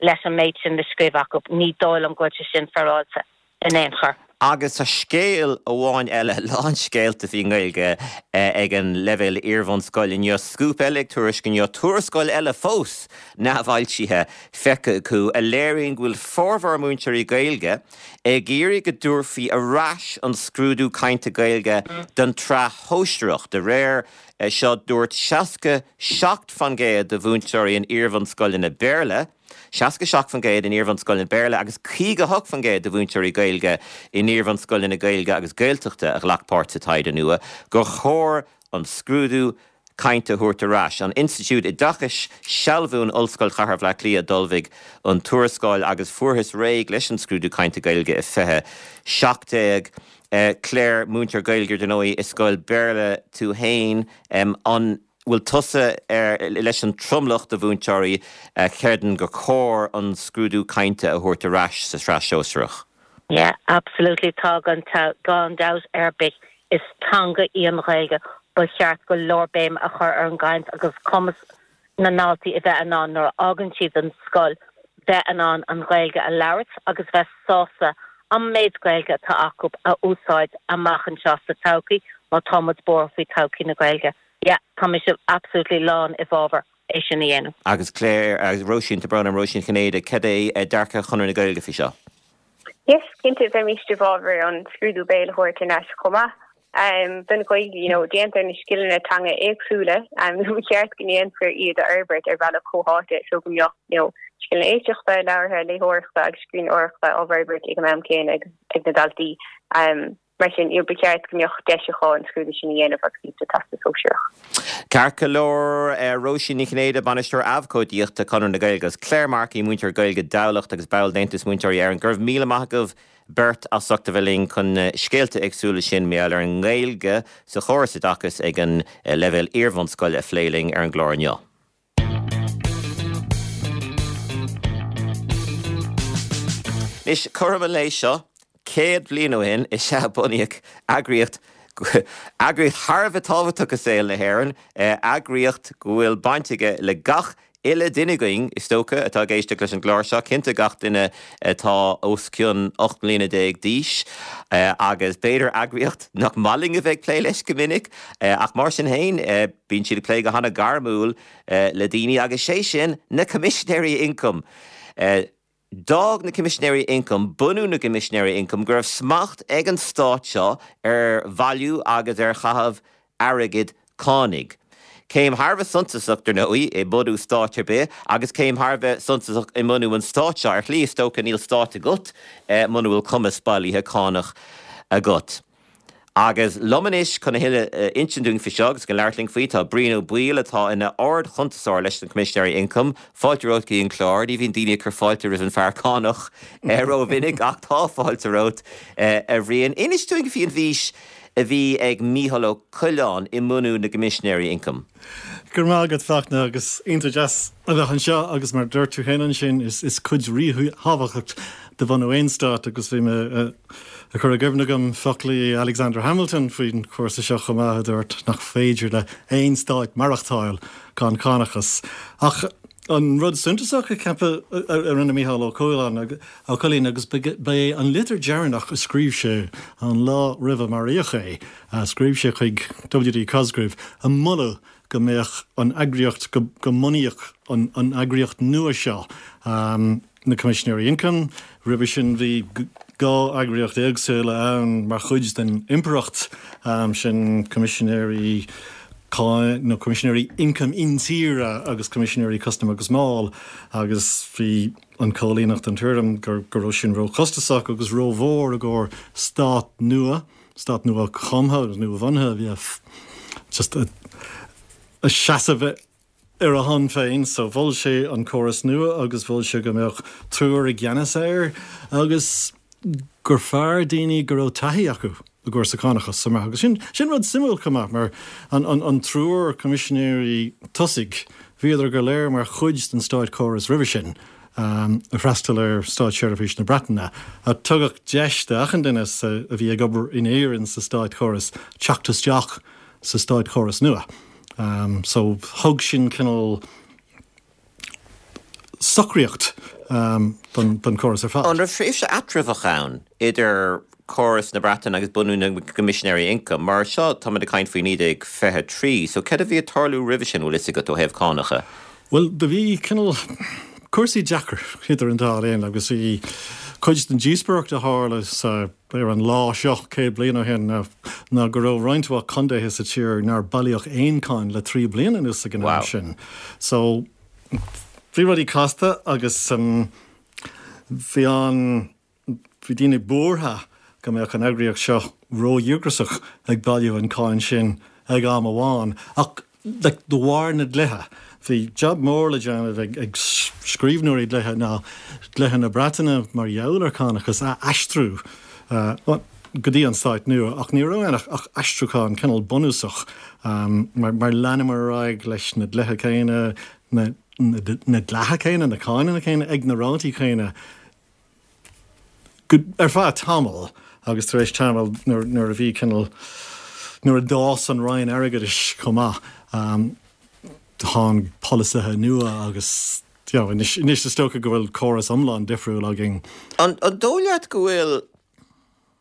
leis an méid sin le scríobh acu. Ní dóigh liom go bhfuil sé sin féaráilte in aon chor. Agus tá scéal amháin eile, lán scéalta faoin nGaeilge ag an leibhéal iarbhunscoile inniu, Scúp eile ag tuairisc inniu, tuarascáil eile fós neamhfhoilsithe feicthe acu a léiríonn go bhfuil formhór múinteoirí Gaeilge ag iarraidh go dtabharfaí ar ais an scrúdú cainte Gaeilge don tsraith shóisearach. De réir seo, dúirt 67% de mhúinteoirí in iarbhunscoileanna Béarla, 67% in iarbhunscoileanna Béarla agus 58% de mhúinteoirí Gaeilge in iarbhunscoileanna Gaeilge agus Gaeltachta a ghlac páirt sa taighde nua, gur chóir an scrúdú cainte a thabhairt ar ais. An Institiúid Oideachais Sealbhú in Ollscoil Chathair Bhaile Átha Cliath a d'ullmhaigh an tuarascáil agus fuarthas réidh leis an scrúdú cainte Gaeilge i 2017. Claire, múinteoir Gaeilge ar ndóigh i scoil Béarla tú fhéin, an bhfuil tusa leis an tromlach de mhúinteoirí a chreideann gur chóir an scrúdú cainte a thabhairt ar ais sa tsraith shóisearach? Yeah, absolutely tá gan gan dabht ar bith. Is teanga í an Ghaeilge. Ba cheart go leor béim a chur ar an gcaint agus cumas na ndaltaí a bheith in ann nuair a fhágann siad an scoil bheith in ann an Ghaeilge a labhairt agus bheith sásta an méid Gaeilge atá acu a úsáid amach anseo sa todhchaí má tá muid buartha faoi todhchaí na Gaeilge. Yeah, tá mise absolutely lán i bhfabhar é sin a dhéanamh. Agus Claire, agus Róisín, tá brón orm, Róisín Chinnéide, cad é dearcadh Chonradh na Gaeilge faoi seo? Yes, cinnte, bheimis i bhfabhar an scrúdú béil a thabhairt thar n-ais chomh maith. Don Ghaeilge, you know, déantar na scileanna teanga éagsúla, nó ba cheart go ndéanfar iad a fhorbairt ar bhealach comhtháite so go mbeadh, you know, scileanna éisteachta, labhartha, léitheoireachta agus scríbhneoireachta á bhforbairt ag an am céanna ag na daltaí. Mar sin, you know, ba cheart go mbeadh deis acu an scrúdú sin a dhéanamh agus iad sa Teastas Sóisearach. Ceart go leor, Róisín Ní Chinnéide, Bainisteoir Abhcóideachta, Conradh na Gaeilge, agus Claire Markey, múinteoir Gaeilge Dhamhlacht agus ball d'Aontas Múinteoirí Éireann. Go raibh míle maith agaibh beirt as ucht a bheith linn chun na scéalta éagsúla sin mar gheall ar an nGaeilge sa chóras oideachais ag an leibhéal iarbhunscoile a phlé linn ar an gclár inniu. Anois, cothrom an lae seo, 100 bliain ó shin is ea a bunaíodh eagraíocht, eagraíocht thar a bheith tábhachtach i saol na hÉireann, eagraíocht go bhfuil baint aige le gach uile duine againn, is dócha, atá ag éisteacht leis an gclár seo, cinnte gach duine atá os cionn 18 mbliana d'aois, agus b'fhéidir eagraíocht nach maith linn a bheith ag plé leis go minic, ach mar sin féin, bíonn siad ag plé go hana-ghairmiúil le daoine, agus sé sin na Coimisinéirí Ioncaim. D'fhág na Coimisinéirí Ioncaim, bunú na gCoimisinéirí Ioncaim, go raibh smacht ag an stát seo ar bhailiú agus ar chaitheamh airgid cánaigh. Céim thar a bheith suntasach, dar ndóigh, i mbunú stáit ar bith, agus céim thar a bheith suntasach i mbunú an stáit seo. Ar shlí, is dócha, níl stát agat muna bhfuil cumas bailithe cánach agat. Agus liom anois chun a thuilleadh a insint dúinn faoi seo agus chun labhairt linn faoi, tá Brian Ó Baoill atá ina Ard-Chuntasóir leis na Coimisinéirí Ioncaim. Fáilte romhat go dtí an clár. Ní bhíonn daoine ag cur fáilte roimh an fear cánach rómhinic ach tá fáilte romhat, a Bhriain. Inis dúinn faoi an bhfís a bhí ag Mícheál Ó Coileáin i mbunú na gCoimisinéirí Ioncaim. Go raibh maith agat, Fachtna, agus iontach deas a bheith anseo agus mar a dúirt tú féin ansin, is cuid ríthábhachtach de bhunú aon stát agus bhí mé ag cur i gcuimhne agam foclaí Alexander Hamilton faoin chúrsa seo chomh maith a dúirt nach féidir le haon stát maireachtáil gan cánachas. Ach an rud suntasach a ceapadh a rinne Mícheál Ó Coileáin agus ba é an litir dheireanach a scríobh sé an lá roimh a maraíodh é, Scríobh sé chuig W.D. Cosgrave ag moladh go mbeadh an eagraíocht, go mbunaíodh an eagraíocht nua seo, na Coimisinéirí Ioncaim. Roimhe sin bhí 2 eagraíocht éagsúla ann mar chuid den Impireacht, sin Coimisinéirí Cáin nó Coimisinéirí Ioncaim Intíre agus Coimisinéirí Custaim agus Máil agus bhí an Cóilíneach den tuairim go raibh sin róchostasach agus rómhór i gcomhair stát nua. Stát nua-chumtha agus nua-bhunaithe a bhí just ag seasamh ar a shon féin. So mhol sé an córas nua agus mhol sé go mbeadh triúr i gceannas air agus gur fearr daoine go raibh taithí acu i gcúrsa cánachais chomh maith. Agus sin, sin rud suimiúil chomh maith mar an, an, an triúr coimisinéirí tosaigh, bhíodar go léir mar chuid den státchóras roimhe sin. a d'fhreastail ar Státseirbhís na Breataine. Tugadh deis d'achan duine a bhí ag obair in Éirinn sa státchóras teacht isteach sa státchóras nua. So thug sin cineál socraíocht don chóras ar fad. An raibh tréimhse eatramhach ann idir córas na Breataine agus bunú na gCoimisinéirí Ioncaim? Mar seo, táimid ag caint faoi 1923, so céard a bhí ag tarlú roimhe sin, bhfuil fhios agat, ó thaobh cánacha? Bhuel, do bhí cineál cúrsaí deacair idir an dá linn agus bhí cuid den díospóireacht a tharla sa, ar an lá seo 100 bliain ó shin ná, ná go raibh roinnt mhaith contaetha sa tír nár bailíodh aon cáin le 3 bliana anuas ag an am sin. So, bhí rudaí casta agus bhí an, Bhí daoine buartha go mbeadh an eagraíocht seo ródhíograiseach ag bailiú an cáin sin ag am amháin. Ach de bharr na dlíthe, bhí jab mór le déanamh ag scríbhneoirí dlíthe ná dlíthe na Breataine mar gheall ar chánachas a aistriú go dtí an stát nua. Ach ní raibh ann ach aistriúchán cineál bunúsach mar leanamar ar aghaidh leis na dlíthe céanna, na dleatha céanna, na cáineanna céanna ag na rátaí céanna. Ar feadh tamaill agus tar éis tamaill nuair a bhí cineál, nuair a d'fhás an Roinn Airgeadais chomh maith, tháinig polasaithe nua agus you know anois, anois is dócha go bhfuil córas iomlán difriúil againn. An dóigh leat go bhfuil,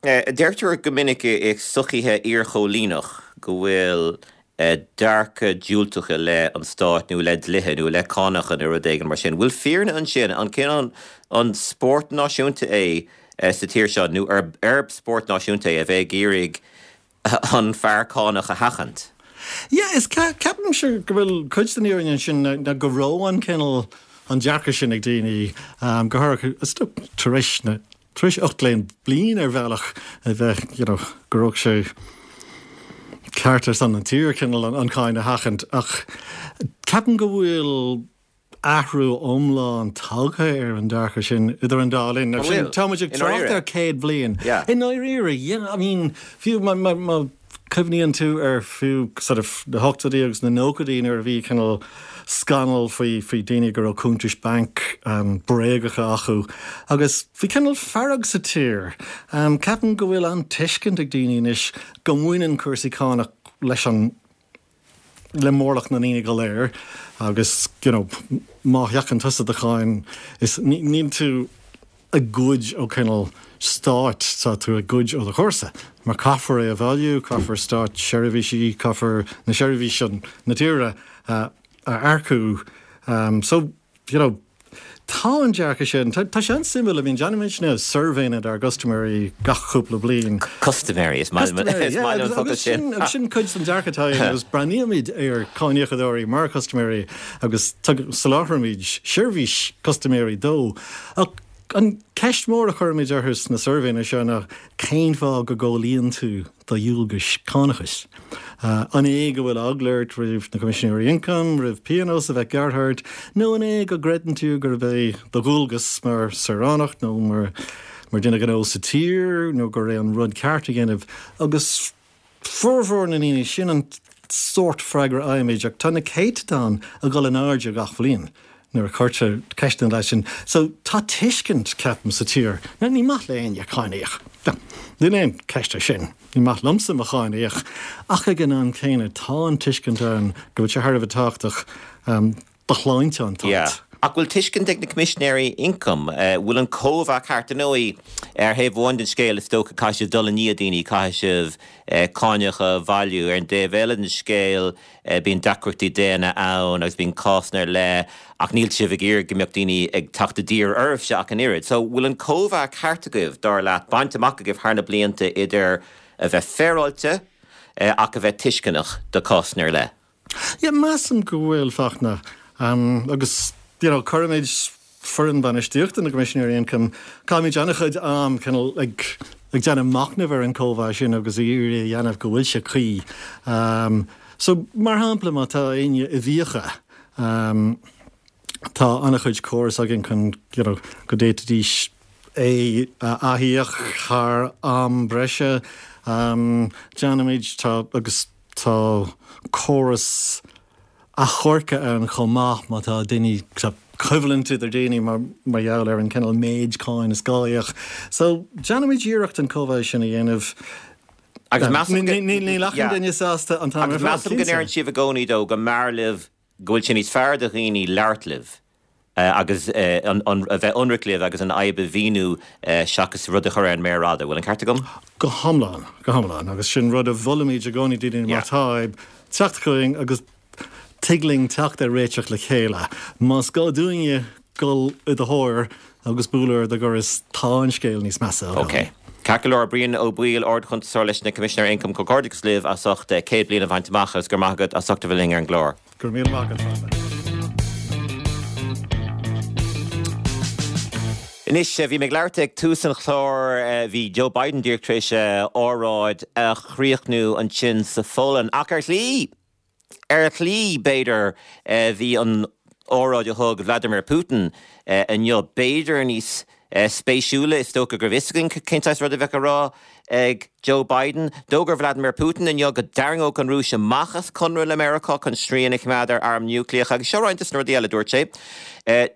deirtear go minic i sochaithe iarchóilíneach go bhfuil dearcadh diúltach i leith an stáit nó i leith dlíthe nó i leith cánacha nó rud éigin mar sin. Bhfuil fírinne ansin? An cineál an spórt náisiúnta é sa tír seo nó arb spórt náisiúnta é a bheith ag iarraidh an fear cánach a sheachaint? Yeah, is ceapaimse go bhfuil cuid den fhírinne ansin ná go raibh an cineál an dearcadh sin ag daoine, go háirithe is dócha tar éis na tar éis 18 bliain ar bhealach a bheith you know go raibh sé ceart ar son an tír cineál an cáin a sheachaint ach ceapaim go bhfuil athrú iomlán tagtha ar an dearcadh sin idir an dá linn. An bhfuil? Tá muid ag trácht ar 100 bliain. Yeah. I ndáiríre, yeah, I mean fiú má má cuimhníonn tú ar fiú sort of na hochtóidí agus na nóchaidí nuair a bhí cineál scannal faoi faoi daoine go raibh cuntais bainc bréagacha acu agus bhí cineál fearg sa tír. Ceapaim go bhfuil an tuiscint ag daoine anois go mbaineann cúrsaí cánach leis an le mórlach na ndaoine go léir agus you know má sheachann tusa do cháin is níl tú ag goid ó cineál stáit, tá tú ag goid ó do chomharsa mar caithfear é a bhailiú, caithfear stát seirbhísí, caithfear na seirbhísí na tíre a earcú. So you know, tá an dearcadh sin, tá sé an-suimiúil, I mean, déanaimidne suirbhéanna dár gcustaiméirí gach cúpla bliain. Custaiméirí, is maith liom an focal sin. Agus sin cuid den dearcadh atá againn agus breathnaímid ar cáiníocadóirí mar chustaiméirí agus soláthraímid seirbhís custaiméirí dó. Ach an ceist mhór a chuirimid orthu sna suirbhéanna seo ná cén fáth go gcomhlíonann tú do dhualgais cánachais? An é go bhfuil eagla ort roimh na Coimisinéirí Ioncaim, roimh pionós a bheith gearrtha ort, nó an é go gcreideann tú gurb é do dhualgas mar saoránach nó mar dhuine gnó sa tír nó gur é an rud ceart a dhéanamh? Agus formhór na ndaoine, sin an sórt freagra a fhaighimid, ach tá na céatadáin ag dul in airde gach bhliain nuair a chuirtear ceisteanna leis sin. So tá tuiscint, ceapaim, sa tír. Now ní maith le éinne cáin a íoc. Níl aon cheist ar sin. Ní maith liomsa mo cháin a íoc. Ach ag an am céanna tá an tuiscint ann go bhfuil sé thar a bheith tábhachtach do shláinte an tsáit. Yeah. Ach bhfuil tuiscint ag na Coimisinéirí Ioncaim? Bhfuil an cóimheá ceart? Ar ndóigh, ar thaobh amháin den scéal, is dócha, caithfidh sibh dul i ndiaidh daoine, caithfidh sibh cáineacha a bhailiú. Ar an dtaobh eile den scéal, bíonn deacrachtaí daonna ann agus bíonn cásanna ar leith ach níl sibh ag iarraidh go mbeadh daoine ag teacht i dtír oraibhse ach an oiread. So, bhfuil an cóimheá ceart agaibh, dar leat, bainte amach agaibh thar na blianta idir a bheith féaráilte ach a bheith tuisceanach do cásanna ar leith? Yeah, measaim go bhfuil, Fachtna. Agus, you know, cuirimid foireann bainistíochta na gCoimisinéirí Ioncaim, caithimid an-chuid am cineál ag ag déanamh machnaimh ar an cóimheá sin agus ag iarraidh a dhéanamh go bhfuil sé cuí. So, mar shampla, má tá éinne i bhfiacha, tá an-chuid córas againn chun, you know, go d'fhéadfaidís é a athíoc thar am breise. Déanaimid, tá, agus Tá córas achomhairc ann chomh maith má tá daoine, tá coimhlint idir daoine mar mar gheall ar an cineál méid cáin is gá a íoc. So, déanaimid iarracht an cóimheá sin a dhéanamh. Agus measaim go. Níl achan duine sásta an t-am ar fad, cinnte. Agus measaim go ndeireann sibh i gcónaí dó go mb'fhearr libh, go bhfuil sé níos fearr do dhaoine labhairt libh agus a bheith ionraic libh agus an fhadhb a mhíniú seachas rud a chur ar an méar fhada. Bhfuil an ceart agam? Go hiomlán, go hiomlán. Agus sin rud a mholaimid i gcónaí do dhaoine má tá fadhb, teacht chugainn agus tig linn teacht ar réiteach le chéile. Más gá dúinne dul i do thóir agus bualadh ar do dhoras, tá an scéal níos measa agam. Ok. Ceart go leor, Brian Ó Baoill, Ard-Chuntasóir leis na Coimisinéirí Ioncaim, comhghairdeachas libh as ucht 100 bliain a bhaint amach agus go raibh maith agat as ucht a bheith linn ar an gclár. Go raibh míle maith agat, Fachtna. Anois, bhí mé ag labhairt ag tús an chláir, bhí Joe Biden díreach tar éis a óráid a chríochnú ansin sa Pholainn, ach ar shlí, ar shlí, b'fhéidir, bhí an óráid a thug Vladimir Putin inniu b'fhéidir níos spéisiúla. Is dócha go raibh fhios againn cén saghas rud a bheadh á rá. ag Joe Biden. D'fhógair Vladimir Putin inniu go dtarraingeodh an Rúis amach as conradh le Meiriceá chun srian a choimeád ar airm núicléacha agus seo roinnt de na rudaí eile a dúirt sé.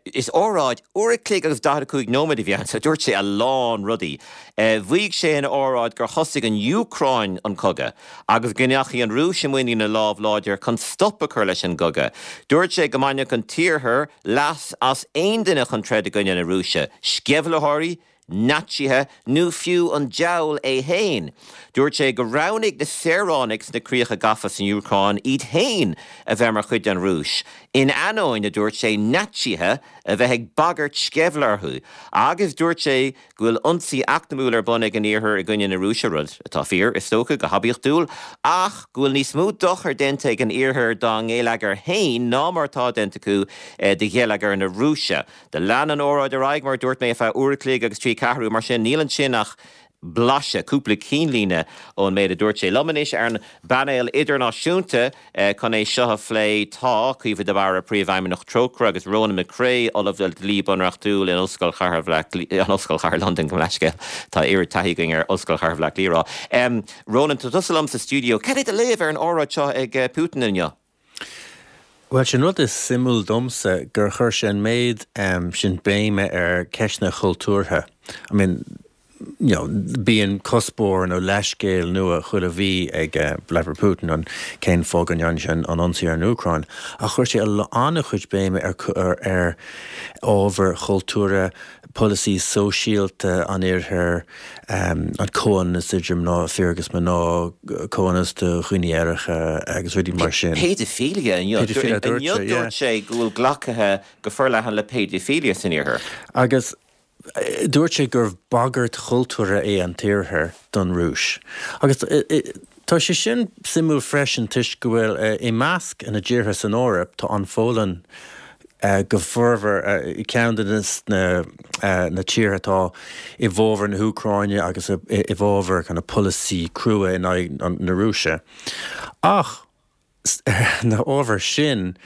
Is óráid uair a chloig agus 45 nóiméad a bhí ann so dúirt sé a lán rudaí. Mhaígh sé ina óráid gur thosaigh an Úcráin an cogadh agus go ndeachaigh an Rúis i muinín a lámh láidir chun stop a chur leis an gcogadh. Dúirt sé go mbainfeadh an tIarthar leas as aon duine chun troid i gcoinne na Rúise, sceimhlitheoirí, Naitsithe nó fiú an diabhal é féin. Dúirt sé gur roghnaigh na saoránaigh sna críocha gafa san Úcráin iad féin a bheith mar chuid den Rúis, in ainneoin, a dúirt sé, Naitsithe a bheith ag bagairt sceimhle orthu. Agus dúirt sé go bhfuil ionsaí eacnamúil ar bun ag an Iarthar i gcoinne na Rúise, rud atá fíor, is dócha, go hoibiachtúil, ach go bhfuil níos mó dochair déanta ag an Iarthar dá ngeilleagar féin ná mar atá déanta acu do gheilleagar na Rúise. Do lean an óráid ar aghaidh, mar a dúirt mé, ar feadh uair a chloig agus trí ceathrú, mar sin níl ansin ach blaiseadh, cúpla cinnlíne ón méid a dúirt sé. Liom anois ar an bpainéal idirnáisiúnta chun é seo a phlé tá, Caoimhe de Barra, Príomhfheidhmeannach Trócaire agus Ronan McCrea, Ollamh le Dlí Bunreachtúil in Ollscoil Chathair Bhaile Átha Cliath, Ollscoil Chathair Londain, gabh mo leithscéal, tá oiread taithí againn ar Ollscoil Chathair Bhaile Átha Cliath a rá. Ronan, tá tusa liom sa stiúideo. Cad é do léamh ar an óráid seo ag Putin inniu? Bhuel, sin rud is suimiúil domsa, gur chuir sé an méid sin béime ar ceisteanna chultúrtha. I mean, you know, bíonn cuspóir nó leithscéal nua chuile mhí ag Vladimir Putin an cén fáth go ndearna sé an ionsaí ar an Úcráin, ach chuir sé an-chuid béime ar ar ábhair chultúrtha, polasaí sóisialta an Oirthir, an comhionannas idir mná, fir agus mná, comhionannas do dhaoine aeracha agus rudaí mar sin. Péidifilia inniu. Péidifilia, dúirt sé, yeah. Dúirt sé go bhfuil glactha go forleathan le péidifilia san Iarthar. Agus dúirt sé gur bagairt chultúrtha é an tIarthar don Rúis. Agus tá sé sin suimiúil freisin toisc go bhfuil i measc na dtíortha san Eoraip tá an Pholainn go formhór ceann de na tíortha atá i bhfabhar na hÚcráine agus i bhfabhar kind of polasaí crua in aghaidh na Rúise. Ach ar na hábhair sin,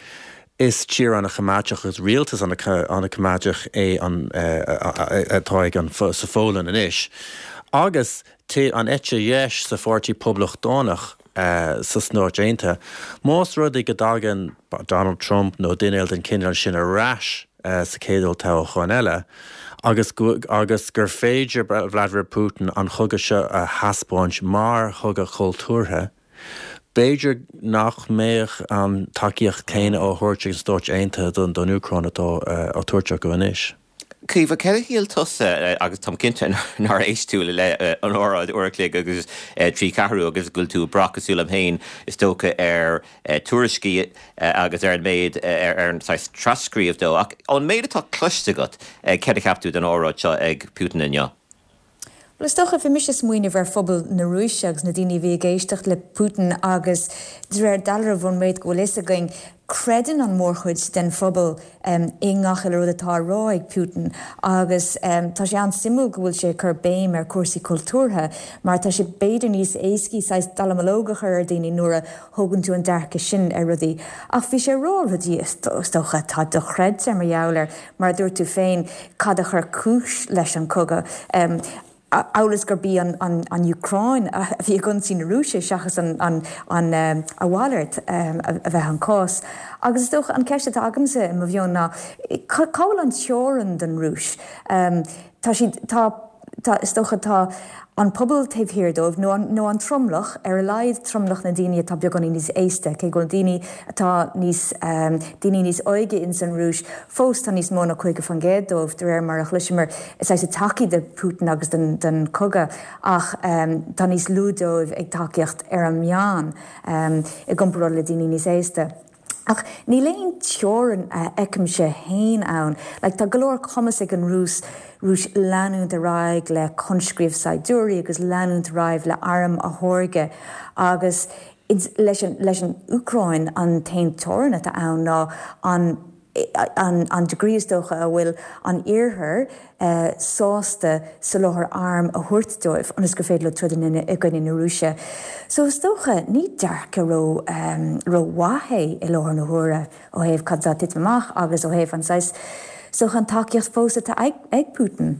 is tír an-choimeádach agus rialtas an-choimeádach é an atá ag an sa Pholainn anois. Agus an eite dheis sa Pháirtí Poblachtánach sa Stáit Aontaithe, más rud é go dtagann Donald Trump nó duine eile den chineál sin ar ais sa chéad olltoghchán eile agus agus gur féidir Vladimir Putin an chogadh seo a thaispeáint mar chogadh cultúrtha, B'fhéidir nach mbeadh an tacaíocht chéanna á thabhairt ag na Stáit Aontaithe don Úcráin atá á tabhairt acu anois. Caoimhe, cad a shíl tusa, agus táim cinnte nár éist tú le an óráid uair a chloig agus trí ceathrú agus go bhfuil tú ag brath cosúil liom féin is dócha ar tuairiscí agus ar an méid ar an saghas trascríobh dó, ach ón méid atá cloiste agat, cad a cheap tú den óráid seo ag Putin inniu? Bhuel, is dócha, bhí mise ag smaoineamh ar phobal na Rúise agus na daoine a bhí ag éisteacht le Putin agus de réir dealraimh ón méid go bhfuil fhios againn, creideann an mhórchuid den phobal i ngach uile rud atá á rá ag Putin agus tá sé an-suimiúil go bhfuil sé ag cur béim ar cúrsaí cultúrtha mar tá sé b'fhéidir níos éascaí saghas dallamullóg a chur ar daoine nuair a thógann tú an dearcadh sin ar rudaí. Ach bhí sé ag rá rudaí is dócha atá dochreidte mar gheall ar Mar a dúirt tú féin, cad a chuir cúis leis an cogadh? Amhail is gurb í an Úcráin a bhí ag ionsaí na Rúise seachas a mhalairt a bheith an cás. Agus is dócha an ceist atá agamsa i mo mheon ná, cá bhfuil an teorainn don Rúis? Tá siad, tá. Tá, is dócha, tá an pobal taobh thiar dóibh, nó an, nó an tromlach, ar a laghad tromlach na ndaoine atá beagáinín níos aosta, cé go bhfuil daoine atá níos, daoine níos óige ins an Rúis fós, tá níos mó ná 50% dóibh, de réir mar a chloiseamar, saghas ag tacaí do Putin agus don, don cogadh, ach tá níos lú dóibh ag tacaíocht ar an meán, i gcomparáid le daoine níos aosta. Ach níl aon teorainn a fheicimse fhéin ann. Like, tá go leor cumas ag an Rúis, Rúis leanúint ar aghaidh le conscríobh saighdiúirí agus leanúint ar aghaidh le airm a tháirgeadh agus leis an, leis an Úcráin an t-aon teorainn atá ann ná an, an, an degree is dócha a bhfuil an Iarthar sásta soláthar arm a thabhairt dóibh ionas gur féidir leo troid i gcoinne na Rúise. So is dócha, ní dearcadh ró rómhaith é i láthair na huaire ó thaobh cad atá ag titim amach agus ó thaobh an saghas, is dócha an tacaíocht fós atá ag Putin.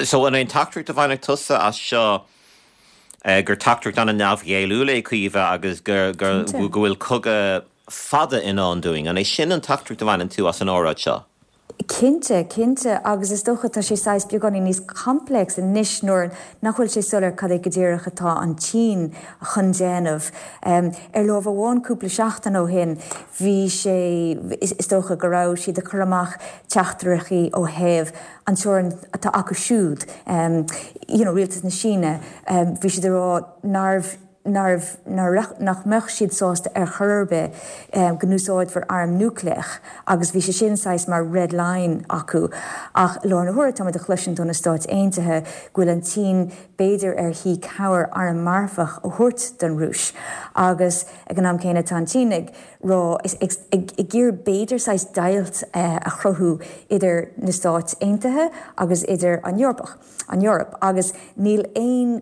So an é an teachtaireacht a bhainfeadh tusa as seo? gur teachtaireacht an-neamhghéilliúil é, Caoimhe, agus go bhfuil cogadh fada i ndán dúinn. An é sin an teachtaireacht a bhaineann tú as an óráid seo? Cinnte, cinnte, agus is dócha tá sé saghas beagáinín níos complex anois nuair nach bhfuil sé soiléir cad é go díreach atá an tSín chun déanamh. Ar lámh amháin cúpla seachtain ó shin bhí sé, is dócha go raibh siad ag cur amach teachtaireachtaí ó thaobh an teorainn atá acu siúd, you know rialtas na Síne, bhí siad ag rá nárbh, nárbh, nach mbeadh siad sásta ar chor ar bith go n-úsáidfear arm núicléach agus bhí sé sin saghas mar red line acu. Ach i láthair na huaire táimid ag cloisint ó na Stáit Aontaithe go bhfuil an tSín b'fhéidir ar thí cabhair arm marfach a thabhairt don Rúis agus ag an am céanna tá an tSín ag rá, ag iarraidh b'fhéidir saghas deighilt a chruthú idir na Stáit Aontaithe agus idir an Eorpach, an Eoraip agus níl aon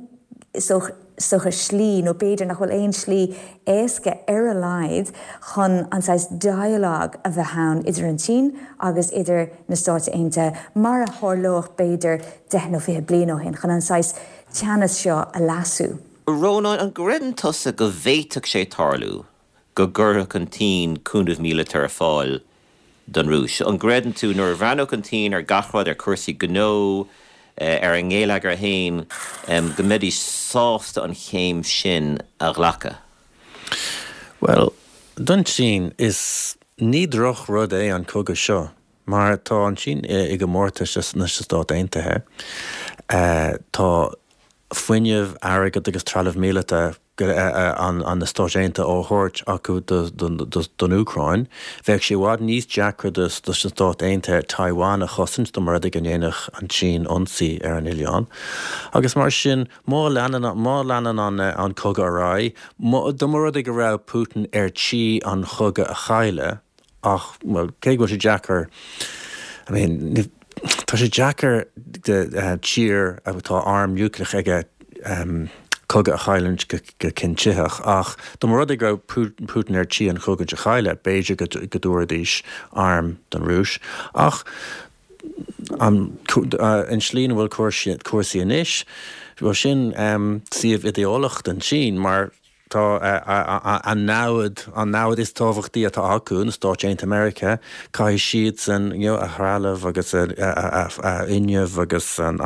is dócha slí nó b'fhéidir nach bhfuil aon slí éasca ar a laghad chun an saghas dialogue a bheith ann idir an tSín agus idir na Stáit Aontaithe mar a tharlódh b'fhéidir 10 nó 20 bliain ó shin chun an saghas teannas seo a leasú. Rónán, an gcreideann tusa go bhféadfadh sé tarlú go gcuirfeadh an tSín cúnamh míleata ar fáil don Rúis? An gcreideann tú, nuair a bhreathnódh an tSín ar gach rud, ar chúrsaí gnó, ar a ngeilleagar féin, go mbeidís sásta an chéim sin a ghlacadh? Bhuel, don tSín, is ní droch-rud é an cogadh seo, mar tá an tSín i gcomórtas leis na Stáit Aontaithe. Tá fuinneamh, airgead agus trealamh míleata an na Stáit Aontaithe á thabhairt acu don Úcráin. Bheadh sé i bhfad níos deacra dos na Stáit Aontaithe Taiwan a chosaint dá mba rud é go ndéanfadh an tSín ionsaí ar an oileán. Agus mar sin, má leanann má leanann an cogadh ar aghaidh, dá mba rud é go raibh Putin ar tí an chogadh a chailleadh, Ach, bhuel, cé go bhfuil sé deacair, I mean, tá sé deacair do tír atá arm núicléach aige cogadh a chailliúint go cinntitheach, ach dá mba rud é go raibh Putin ar tí an chogadh a chailleadh, b'fhéidir go dtabharfaidís airm don Rúis. Ach an tslí ina bhfuil cúrsaí anois, bhuel, sin suíomh idéalach don tSín mar Tá a namhaid, an namhaid is tábhachtaí atá acu, na Stáit Aontaithe Meiriceá, caithfidh siadsan you know a threalamh agus a fhuinneamh agus an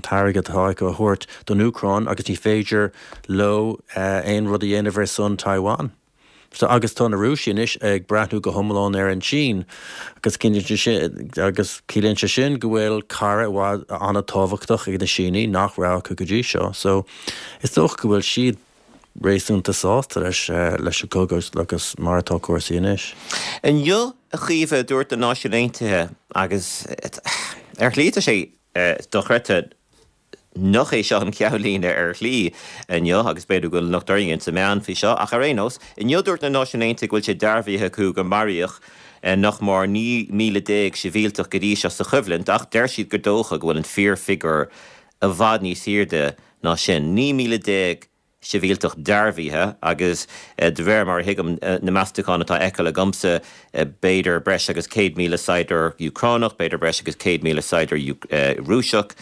t-airgead atá acu a thabhairt don Úcráin agus ní féidir leo aon rud a dhéanamh ar son Taiwan. So agus tá na Rúisigh anois ag breathnú go hiomlán ar an tSín agus agus ciallaíonn sé sin go bhfuil cara i bhfad an-tábhachtach ag na Sínigh nach raibh acu go dtí seo. So is dócha go bhfuil siad réasúnta sásta leis leis an gcogadh agus mar atá cúrsaí anois. Inniu, a Chaoimhe, dúirt na Náisiúin Aontaithe, agus ar shlí tá sé dochreidte nach é seo an cheannlíne ar shlí inniu, agus b'fhéidir go bhfuil locht orainn ins na meáin faoi seo, ach ar aon nós, inniu dúirt na Náisiúin Aontaithe go bhfuil sé dearbhaithe acu gur maraíodh nach mór 19,000 sibhialtach go dtí seo sa choimhlint, ach deir siad gur dócha go bhfuil an fíorfhigiúr i bhfad níos airde ná sin, 19,000 sibhialtach dearbhaithe agus de réir mar a thuigim na meastacháin atá á fheiceáil agamsa, b'fhéidir breis agus 100,000 saighdiúir Úcránach, b'fhéidir breis agus 100,000 saighdiúir Rúiseach.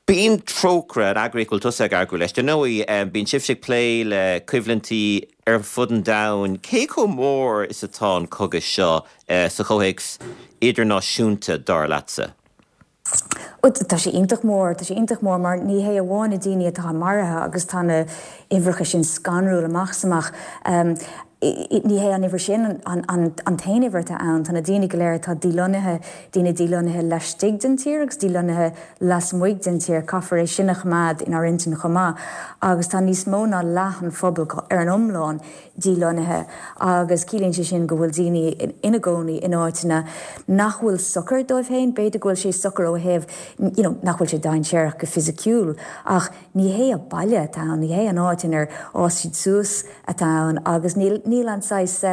Bíonn Trócaire, an eagraíocht a bhfuil tusa ag oibriú leis, dar ndóigh, bíonn sibhse ag plé le coimhlintí ar fud an domhain. Cé chomh mór is atá an cogadh seo sa chomhthéacs idirnáisiúnta, dar leatsa? Tá sé iontach mór, tá sé iontach mór mar ní hé amháin na daoine atá maraithe agus tá na huimhreacha sin scanrúil amach is amach, ní hé an uimhir sin an t-aon uimhir atá ann, tá na daoine go léir atá dílonnaithe, daoine dílonnaithe laistigh den tír agus dílonnaithe lasmuigh den tír, caithfear é sin a choimeád inár intinn chomh maith agus tá níos mó ná leath an phobail ar an iomlán dílonnaithe agus ciallaíonn sé sin go bhfuil daoine ina gcónaí in áiteanna nach bhfuil socair dóibh féin. B'fhéidir go bhfuil sé socair ó thaobh you know nach bhfuil sé dainséarach go fisiciúil ach ní hé a baile atá ann, ní hé an áit inar fhás siad suas atá ann agus níl níl an saghas.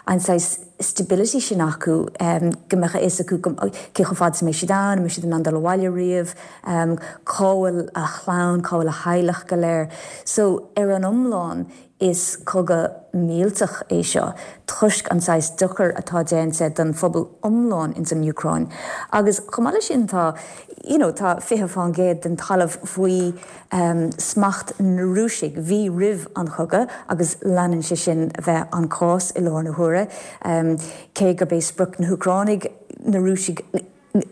an saghas stability sin acu, go mbeadh a fhios acu cé chomh fada is a mbeidh siad ann, an mbeidh siad in ann dul abhaile riamh, cá bhfuil a chlann, cá bhfuil a theaghlach go léir. So, ar an iomlán, is cogadh millteach é seo toisc an saghas dochair atá déanta don phobal iomlán ins an Úcráin. Agus chomh maith leis sin tá, you know, tá 20% den talamh faoi smacht na Rúisigh, bhí roimh an chogadh agus leanann sé sin a bheith an cás i láthair na huaire, cé gurb é sprioc na hÚcránaigh na Rúisigh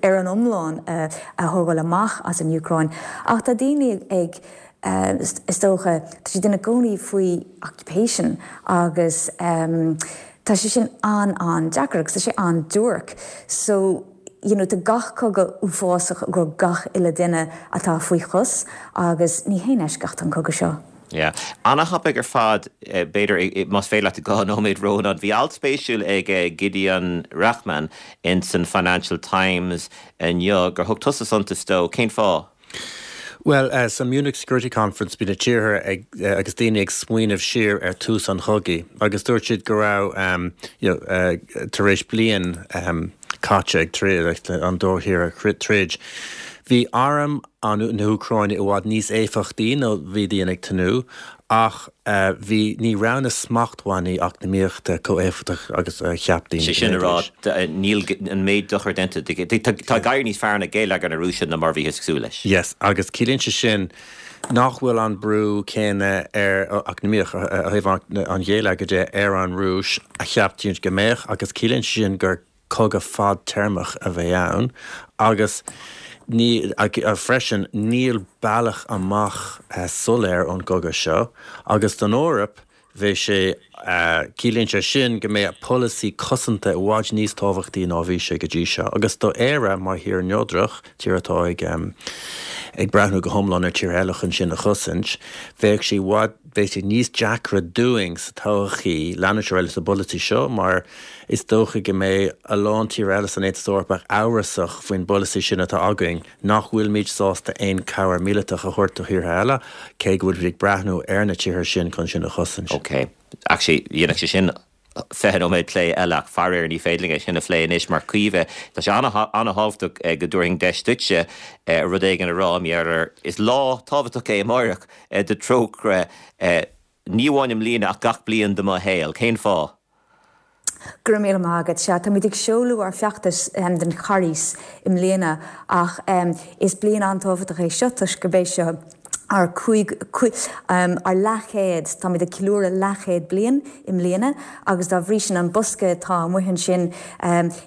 ar an iomlán a thógáil amach as an Úcráin. Ach tá daoine ag, is dócha, tá siad ina gcónaí faoi occupation agus tá sé sin an-an-deacair agus tá sé an-duairc. So, you know, tá gach cogadh uafásach i gcomhair gach uile duine atá faoi chos agus ní haon eisceacht an cogadh seo. Yeah. Ana-thapaidh ar fad, b'fhéidir, más féidir leat 2 nóiméad Rónán. Bhí alt spéisiúil ag Gideon Rachman ins an Financial Times inniu gur thug tusa suntas dó. Cén fáth? Bhuel, sa Munich Security Conference bhí na tíortha ag, agus daoine ag smaoineamh siar ar tús an chogaidh agus dúirt siad go raibh, you know, tar éis bliain caite ag troid, an dá thír ag troid, bhí arm an na hÚcráine i bhfad níos éifeachtaí ná bhí daoine ag tnúth ach bhí, ní raibh na smachtbhannaí eacnamaíochta chomh éifeachtach agus a cheap daoine Sé sin a rá, níl an méid dochair déanta, tá ag éirí níos fearr le geilleagar na Rúise ná mar a bhíothas ag súil leis. Yes, agus ciallaíonn sé sin nach bhfuil an brú céanna ar, eacnamaíoch, ó thaobh an gheilleagair de, ar an Rúis a cheap daoine go mbeadh agus ciallaíonn sé sin gur cogadh fadtéarmach a bheidh ann agus ní, freisin, níl bealach amach soiléir ón gcogadh seo agus don Eoraip bheadh sé, ciallaíonn sé sin go mbeidh polasaí cosanta i bhfad níos tábhachtaí ná a bhí sé go dtí seo agus do Éire mar thír neodrach, tír atá ag ag breathnú go hiomlán ar tíortha eile chun sinn a chosaint, bheadh sé i bhfad, bheadh sé níos deacra dúinn sa todhchaí leanúint ar aghaidh leis an bpolasaí seo mar Is dócha go mbeidh a lán tíortha eile san Aontas Eorpach amhrasach faoin bpolasaí sin atá againn, nach bhfuilimid sásta aon chabhair mhíleatach a thabhairt do thíortha eile, cé go bhfuilimid ag breathnú ar na tíortha sin chun sinn a chosaint. Ok. Actually, dhéanfadh sé sin 20 nóiméad plé eile ach faraor ní féidir linn é sin a phlé anois mar Caoimhe, tá sé an-thábhachtach go dtabharfainn deis duitse rud éigin a rá, mar is lá tábhachtach é amáireach do Trócaire, ní amháin i mbliana ach gach bliain de mo shaol. Cén fáth? Go raibh míle maith agat. Sea, táimid ag seoladh ár bhfeachtas don Charghas i mbliana ach is bliain an-tábhachtach é seo toisc gurb é seo ár cúig, ár leathchéad, táimid ag ceiliúradh leathchéad bliain i mbliana agus dá bhrí sin an bosca atá amuigh ansin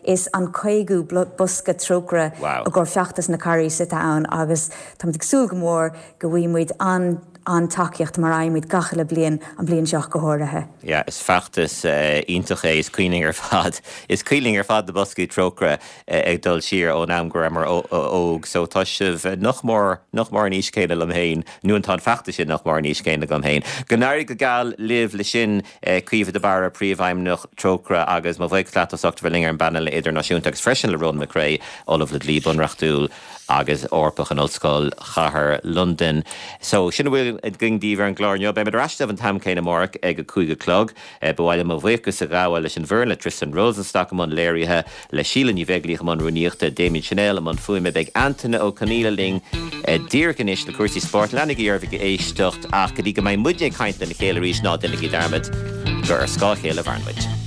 is an caogadú bosca Trócaire i gcomhair feachtas na Carghais atá ann agus táimid ag súil go mór go bhfaighidh muid an an-tacaíocht mar a fhaighimid gach uile bliain, an bhliain seo ach go háirithe. Yeah, is feachtas iontach é, is cuimhin linn ar fad, is cuimhin linn ar fad na boscaí Trócaire ag dul siar ón am go rabhamar óg, so tá sibh nach mór, nach mór an aois céanna liom féin, nó tá an feachtas sin nach mór an aois céanna agam féin. Go n-éirí go geal libh le sin, Caoimhe de Barra, Príomhfheidhmeannach Trócaire agus mo bhuíochas leat as ucht a bheith linn ar an bpainéal idirnáisiúnta agus freisin le Ronan McCrea, Ollamh le Dlí Bunreachtúil. agus Eorpach in Ollscoil Chathair Londain. So, sin a bhfuil againn daoibh ar an gclár inniu. Beimid ar ais libh an t-am céanna amárach ag a 5 a chlog. Ba mhaith liom mo bhuíochas a ghabháil leis an bhfoireann, le Tristan Rosenstock i mbun léirithe, le Síle Ní Bheaglaoich i mbun rúnaíochta, Damien Channel i mbun fuaime. Beidh Antaine Ó Conaola linn díreach anois le cúrsaí spóirt. Leanaigí oraibh ag éisteacht ach go dtí go mbeidh muidne ag caint lena chéile arís, ná déanaigí dearmad gur ar scáth a chéile a mhaireann muid.